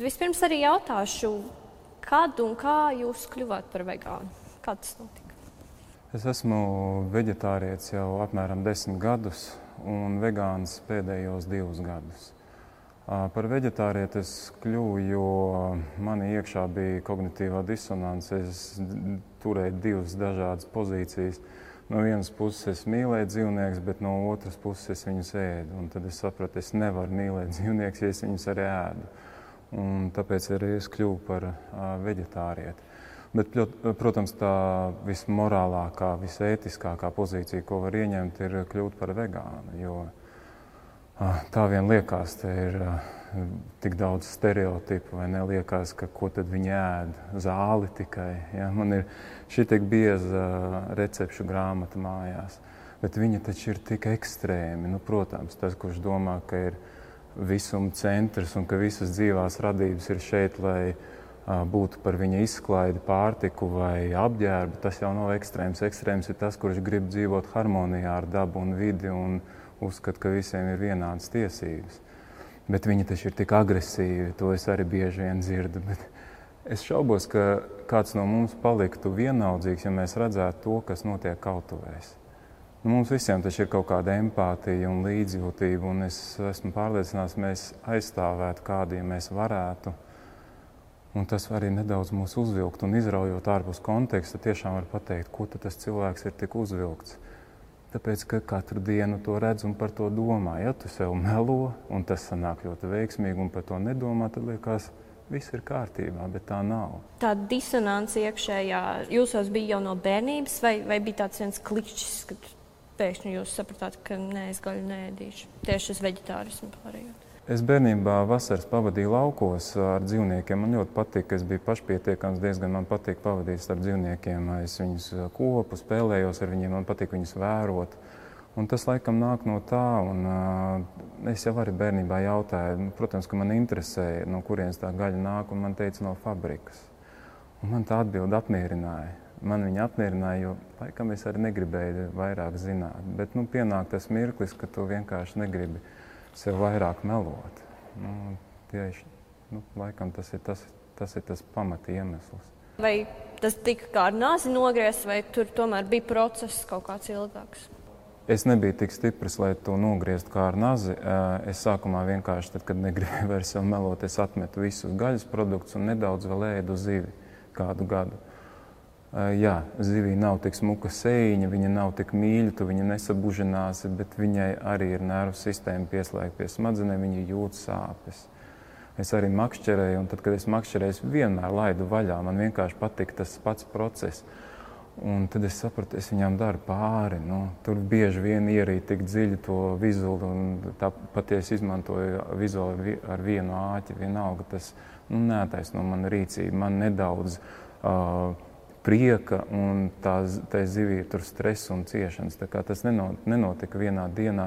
Vispirms arī jautāšu, kad un kā jūs kļuvāt par vegānu? Kā tas notika? Es esmu veģetārietis jau apmēram 10 gadus un vegāns pēdējos 2 gadus. Par veģetārieti es kļuvu, jo manī iekšā bija kognitīvā disonance. Es turēju 2 dažādas pozīcijas. No vienas puses es mīlēju dzīvniekus, bet no otras puses es viņus ēdu. Un tad es sapratu, es nevaru mīlēt dzīvniekus, ja es viņus arī ēdu. Un tāpēc arī es kļuvu par veģetārieti. Bet, protams, tā vismorālākā, visētiskākā pozīcija, ko var ieņemt, ir kļūt par vegānu. Jo tā vien liekas, te ir tik daudz stereotipu, vai neliekas, ka ko tad viņi ēd? Zāli tikai. Ja? Man ir šī tik bieza recepšu grāmata mājās. Bet viņi taču ir tik ekstrēmi. Nu, protams, tas, kurš domā, ka ir visuma centrs un ka visas dzīvās radības ir šeit, lai būtu par viņa izklaidi, pārtiku vai apģērbu, tas jau nav ekstrēms. Ekstrēms ir tas, kurš grib dzīvot harmonijā ar dabu un vidi un uzskata, ka visiem ir vienādas tiesības. Bet viņi taču ir tik agresīvi, to es arī bieži vien dzirdu. Bet es šaubos, ka kāds no mums paliktu vienaldzīgs, ja mēs redzētu to, kas notiek kautuvēs. Mums visiem taču ir kaut kāda empātija un līdzjūtība, un es esmu pārliecināts, mēs aizstāvētu kādu, ja mēs varētu. Un tas arī nedaudz mūs uzvilkt, un izraujot ārpus konteksta, tiešām var pateikt, ko tad tas cilvēks ir tik uzvilkts. Tāpēc, ka katru dienu to redz un par to domā. Ja tu sev melo, un tas sanāk ļoti veiksmīgi, un par to nedomā, tad liekas, viss ir kārtībā, bet tā nav. Tā disonance iekšējā jūsos bija jau no bērnības, vai bija tāds viens klikšķis, kad pēkšņi jūs sapratāt, ka nē, es gaļu neēdīšu, tieši uz veģetārismu pārējot? Es bērnībā vasaras pavadīju laukos ar dzīvniekiem. Man ļoti patika, es biju pašpietiekams, diezgan man patīk pavadīt ar dzīvniekiem. Es viņus kopu, spēlējos ar viņiem, man patīk viņus vērot. Un tas laikam nāk no tā, un es jau arī bērnībā jautāju, protams, ka man interesēja, no kurienes tā gaļa nāk, un man teica no fabrikas. Un man tā atbilde apmierināja. Man viņa apmierināja, jo laikam es arī negribēju vairāk zināt. Bet pienāk tas mirklis, ka tu vienkārši negribi sev vairāk melot. Tieši, laikam tas ir tas pamata iemesls. Vai tas tika kā ar nāzi nogriezts, vai tur tomēr bija process kaut kāds ilgāks? Es nebiju tik stiprs, lai to nogrieztu kā ar nazi. Es sākumā vienkārši, tad, kad negribēju vairs sev melot, es atmetu visus gaļas produktus un nedaudz vēl ēdu zivi kādu gadu. Jā, zivī nav tik smuka sējiņa, viņa nav tik mīļa, tu viņa nesabužinās, bet viņai arī ir nervu sistēma pieslēgta pie smadzenēm, viņa jūt sāpes. Es arī makšķerēju, un tad, kad es makšķerēju, es vienmēr laidu vaļā. Man vienkārši patika tas pats process. Un tad es sapratu, es viņām daru pāri. Tur bieži vien ierīt tik dziļi to vizuli, un tā patiesi izmantoju vizuli ar vienu āķi. Vienalga tas neataisno mana rīcība. Man nedaudz prieka, un tā zivī ir tur stress un ciešanas. Tā kā tas nenotika vienā dienā,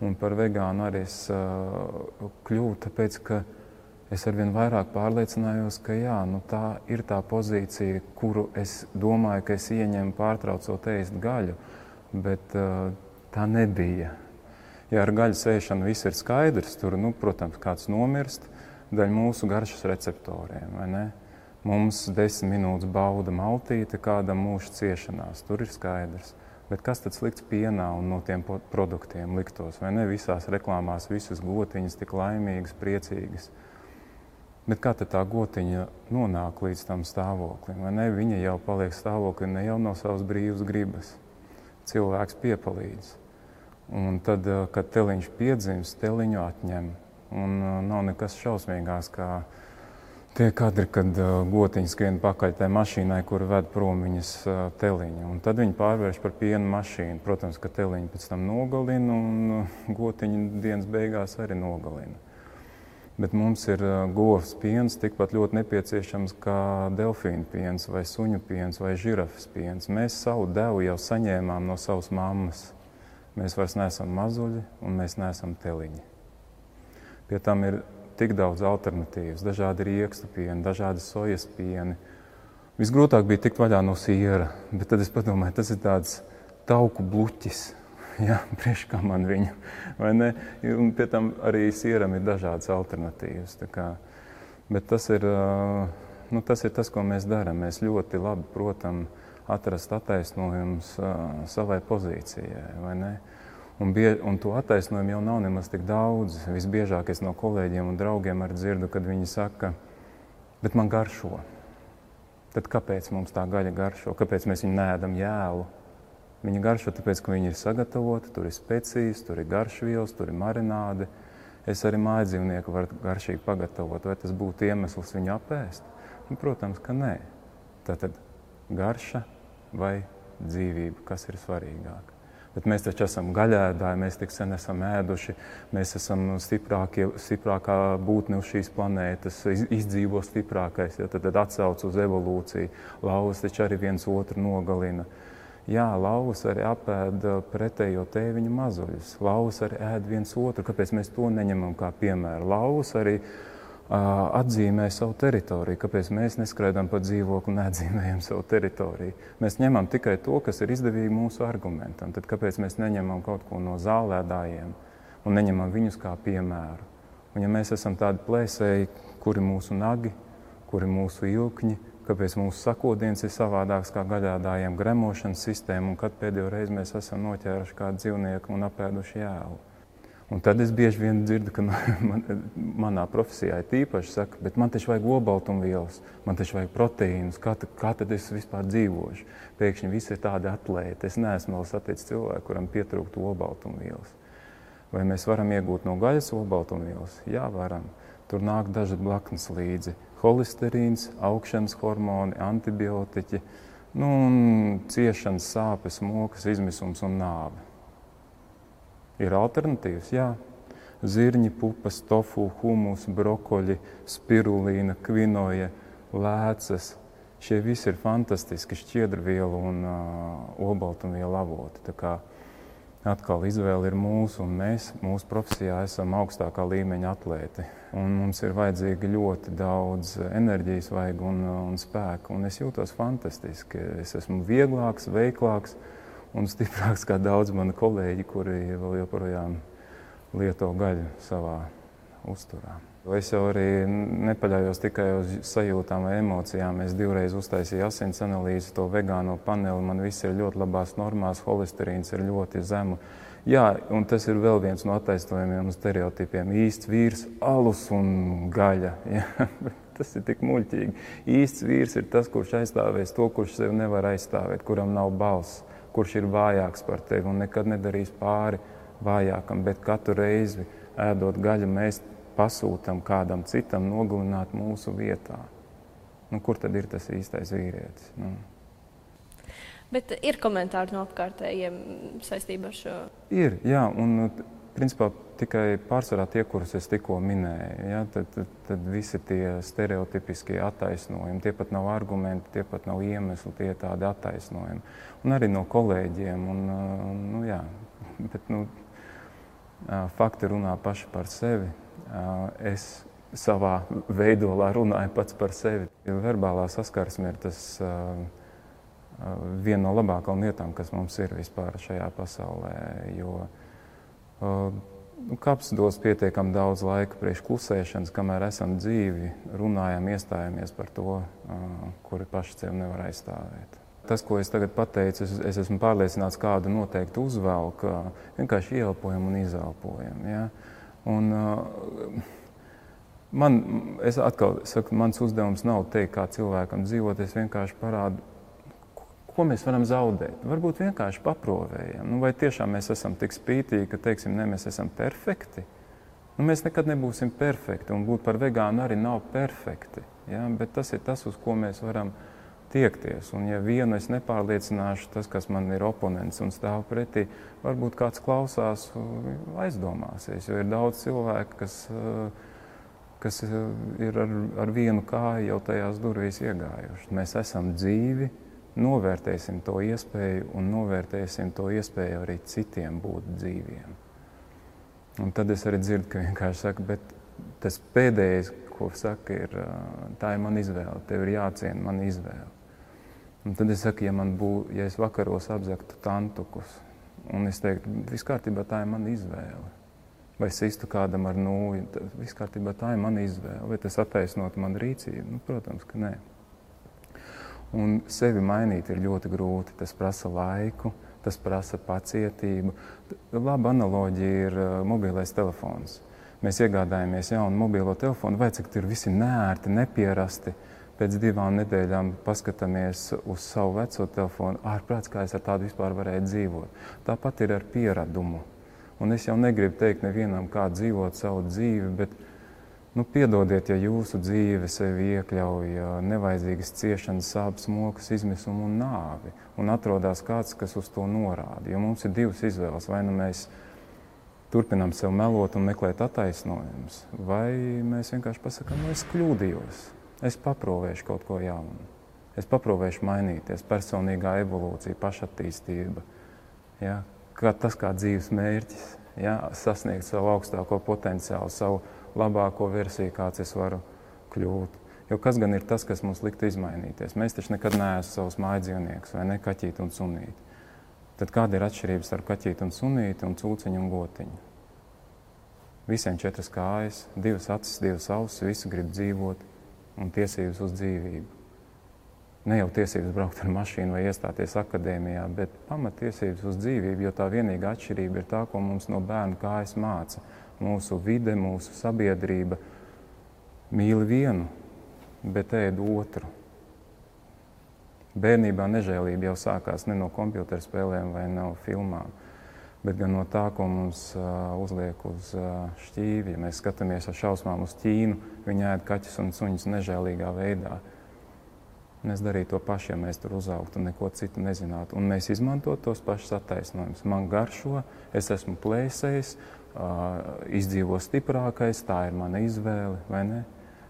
un par vegānu arī es kļuvu, tāpēc, ka es arvien vairāk pārliecinājos, ka jā, tā ir tā pozīcija, kuru es domāju, ka es ieņemu pārtraucot ēst gaļu, bet tā nebija. Ja ar gaļas ēšanu viss ir skaidrs, tur, protams, kāds nomirst, daļa mūsu garšas receptoriem, vai ne? Mums 10 minūtes bauda maltīte, kādam mūža ciešanās, tur ir skaidrs. Bet kas tad slikts pienā un no tiem produktiem liktos, vai ne? Visās reklāmās visas gotiņas tik laimīgas, priecīgas. Bet kā tad tā gotiņa nonāk līdz tam stāvoklim, vai ne? Viņa jau paliek stāvoklī ne jau no savas brīvas gribas. Cilvēks piepalīdz. Un tad, kad teliņš piedzimst, teliņu atņem. Un nav nekas šausmīgās, kā tie kadri, kad gotiņas skrien pakaļ tai mašīnai, kur ved prom viņas teliņu. Un tad viņi pārvērš par piena mašīnu. Protams, ka teliņu pēc tam nogalina un gotiņu dienas beigās arī nogalina. Bet mums ir govs piens tikpat ļoti nepieciešams kā delfīnu piens vai suņu piens vai žirafas piens. Mēs savu devu jau saņēmām no savas mammas. Mēs vairs neesam mazuļi un mēs neesam teliņi. Pie tam ir tik daudz alternatīvas, dažādi riekstu pieni, dažādi sojas pieni. Visgrūtāk bija tikt vaļā no siera, bet tad es padomāju, tas ir tāds tauku bluķis. Jā, priekš kā man viņu, vai ne? Un pie tam arī sieram ir dažādas alternatīvas. Tā kā Bet tas ir tas, ko mēs darām. Mēs ļoti labi protam atrast attaisnojumus savai pozīcijai, vai ne? Un to attaisnojumu jau nav nemaz tik daudz. Visbiežāk es no kolēģiem un draugiem arī dzirdu, kad viņi saka, bet man garšo. Tad kāpēc mums tā gaļa garšo? Kāpēc mēs viņu neēdam jēlu? Viņa garšo tāpēc, ka viņa ir sagatavota, tur ir specijas, tur ir garšvielas, tur ir marināde. Es arī mājdzīvnieku varu garšīgi pagatavot. Vai tas būtu iemesls viņu apēst? Protams, ka nē. Tātad garša vai dzīvība, kas ir svarīgāk. Bet mēs taču esam gaļēdāji, mēs tik sen esam ēduši, mēs esam stiprākā būtne uz šīs planētas, izdzīvo stiprākais, ja, tad atsauc uz evolūciju. Lauvas taču arī viens otru nogalina. Jā, lauvas arī apēda pretējo tēviņu mazuļus. Lauvas arī ēd viens otru. Kāpēc mēs to neņemam kā piemēru? Lauvas arī atzīmē savu teritoriju. Kāpēc mēs neskraidām pa dzīvokli un neatzīmējam savu teritoriju? Mēs ņemam tikai to, kas ir izdevīgi mūsu argumentam. Tad kāpēc mēs neņemam kaut ko no zālēdājiem un neņemam viņus kā piemēru? Un ja mēs esam tādi plēsēji, kuri mūsu nagi, kuri mūsu ilkņi, kāpēc mūsu sakodiens ir savādāks kā gaļādājiem gremošanas sistēma un kad pēdējo reizi mēs esam noķēruši kādu dzīvnieku un apēduši jēlu? Un tad es bieži vien dzirdu, ka manā profesijā ir tīpaši saka, bet man taču vajag olbaltumvielas, man taču vajag proteīnus, kā tad es vispār dzīvošu? Pēkšņi visi ir tādi atlēti. Es neesmu vēl saticis cilvēku, kuram pietrūktu olbaltumvielas. Vai mēs varam iegūt no gaļas olbaltumvielas? Jā, varam. Tur nāk daži blaknes līdzi. Holesterīns, augšanas hormoni, antibiotiķi, un ciešanas, sāpes, mokas, izmisums un nāve. Ir alternatīvas, jā. Zirņi, pupas, tofu, humus, brokoļi, spirulīna, kvinoja, lēcas. Šie visi ir fantastiski šķiedrvielu un olbaltumvielu avoti. Tā kā atkal izvēle ir mūsu, un mēs mūsu profesijā esam augstākā līmeņa atlēti. Un mums ir vajadzīgi ļoti daudz enerģijas vajag un spēku, un es jūtos fantastiski. Es esmu vieglāks, veiklāks un stiprāks kā daudz mani kolēģi, kuri vēl joprojām lieto gaļu savā uzturā. Es jau arī nepaļaujos tikai uz sajūtām vai emocijām. Es 2 reizes uztaisīju asins analīzi, to vegāno paneli. Man viss ir ļoti labās normās, holesterīns ir ļoti zemu. Jā, un tas ir vēl viens no attaisnojumiem un stereotipiem. Īsts vīrs, alus un gaļa. Jā, tas ir tik muļķīgi. Īsts vīrs ir tas, kurš aizstāvēs to, kurš sevi nevar aizstāvēt, kuram nav balss, kurš ir vājāks par tevi un nekad nedarīs pāri vājākam, bet katru reizi ēdot gaļu mēs pasūtam kādam citam nogalināt mūsu vietā. Kur tad ir tas īstais vīrietis? Bet ir komentāri no apkārtējiem saistībā ar šo? Ir, jā, un principā tikai pārsvarā tie, kurus es tikko minēju. Ja, tad visi tie stereotipiskie attaisnojumi, tie pat nav argumenti, tie pat nav iemesli, tie tādi attaisnojumi. Un arī no kolēģiem. Fakti runā paši par sevi. Es savā veidolā runāju pats par sevi. Verbālā saskarsme ir tas viena no labākajām lietām, kas mums ir vispār šajā pasaulē, jo kapsdos pietiekam daudz laika priekš klusēšanas, kamēr esam dzīvi, runājam, iestājāmies par to, kuri paši sevi nevar aizstāvēt. Tas, ko es tagad pateicu, es esmu pārliecināts, kādu noteikti uzvelk, vienkārši ieelpojam un izelpojam. Ja? Un es atkal saku, mans uzdevums nav teikt, kā cilvēkam dzīvot, es vienkārši parādu, ko mēs varam zaudēt. Varbūt vienkārši paprovējam. Vai tiešām mēs esam tik spītīgi, ka teiksim, ne, mēs esam perfekti? Mēs nekad nebūsim perfekti, un būt par vegānu arī nav perfekti. Ja? Bet tas ir tas, uz ko mēs varam tiekties. Un ja vienu es nepārliecināšu, tas, kas man ir oponents un stāv pretī, varbūt kāds klausās, aizdomāsies, jo ir daudz cilvēku, kas ir ar vienu kāju jau tajās durvīs iegājuši. Mēs esam dzīvi, novērtēsim to iespēju un novērtēsim to iespēju arī citiem būt dzīviem. Un tad es arī dzirdu, ka vienkārši saka, bet tas pēdējais, ko saka, ir, tā ir mana izvēle, tev ir jāciena mana izvēle. Un tad es saku, ja es vakaros apzaktu tantukus, un es teiktu, viss kārtībā, tā ir mana izvēle. vai sistu kādam ar nūju. Viss kārtībā, tā ir mana izvēle. Vai tas attaisnot manu rīcību? Nu, protams, ka nē. Un sevi mainīt ir ļoti grūti. Tas prasa laiku, tas prasa pacietību. Laba analoģija ir mobilais telefons. Mēs iegādājamies jaunu mobilo telefonu, vai cik tur visi neērti, nepierasti. Pēc 2 nedēļām paskatāmies uz savu veco telefonu. Ārprāts, kā es ar tādu vispār varēju dzīvot. Tāpat ir ar pieradumu. Un es jau negribu teikt nevienam, kā dzīvot savu dzīvi, bet piedodiet, ja jūsu dzīve sevi iekļauj nevajadzīgas ciešanas, sāpes, mokas, izmisumu un nāvi. Un atrodas kāds, kas uz to norāda. Jo mums ir 2 izvēles. Vai nu mēs turpinām sev melot un meklēt attaisnojumus, vai mēs vienkārši pasakām, es kļūdījos. Es paprovēšu kaut ko jaunu. Es paprovēšu mainīties, personīgā evolūcija, pašattīstība. Ja? Tas kā dzīves mērķis, ja? Sasniegt savu augstāko potenciālu, savu labāko versiju, kāds es varu kļūt. Jo kas gan ir tas, kas mums liktu izmainīties? Mēs taču nekad neesam savus mājdzīvniekus, vai ne, kaķīti un sunīti. Tad kāda ir atšķirība starp kaķīti un sunīti un cūciņu un gotiņu? Visiem 4 kājas, 2 acis, 2 ausis, visi grib dzīvot. Un tiesības uz dzīvību. Ne jau tiesības braukt ar mašīnu vai iestāties akadēmijā, bet pamatiesības uz dzīvību, jo tā vienīgā atšķirība ir tā, ko mums no bērna kājas māca. Mūsu vide, mūsu sabiedrība mīl vienu, bet ēd otru. Bērnībā nežēlība jau sākās ne no kompjuterspēlēm vai no filmām, bet gan no tā, ko mums uzliek uz šķīvi. Ja mēs skatāmies ar šausmām uz Ķīnu, viņi ēd kaķus un suņus nežēlīgā veidā. Mēs darītu to pašu, ja mēs tur uzaugtu un neko citu nezinātu. Un mēs izmantot tos pašus attaisnojumus. Man garšo, es esmu plēsējis, izdzīvo stiprākais, tā ir mana izvēle, vai ne?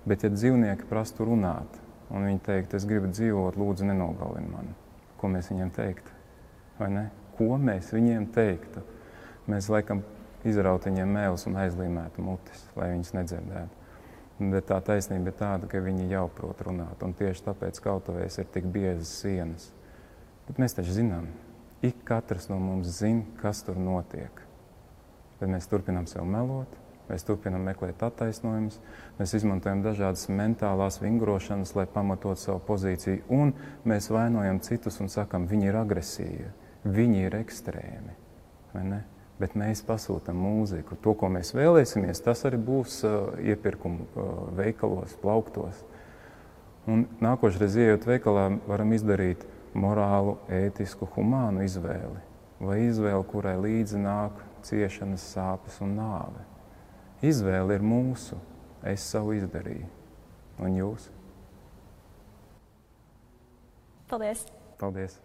Bet ja dzīvnieki prastu runāt, un viņi teikt, es gribu dzīvot, lūdzu nenogalini mani, ko mēs viņiem teiktu, vai ne? Ko mēs viņiem teiktu? Mēs laikam izrautu viņiem mēlus un aizlīmētu mutis, lai viņus nedzirdētu. Bet tā taisnība ir tāda, ka viņi jau prot runāt, un tieši tāpēc kautuvēs ir tik biezas sienas. Bet mēs taču zinām, ik katrs no mums zina, kas tur notiek. Bet mēs turpinām sev melot, mēs turpinām meklēt attaisnojumus, mēs izmantojam dažādas mentālās vingrošanas, lai pamatot savu pozīciju, un mēs vainojam citus un sakam, viņi ir agresīvi. Viņi ir ekstrēmi, vai ne? Bet mēs pasūtam mūziku. To, ko mēs vēlēsimies, tas arī būs iepirkumu veikalos, plauktos. Un nākošreiz, ejot veikalā, varam izdarīt morālu, ētisku, humānu izvēli. Vai izvēli, kurai līdzi nāk ciešanas, sāpes un nāve. Izvēle ir mūsu. Es savu izdarīju. Un jūs? Paldies! Paldies!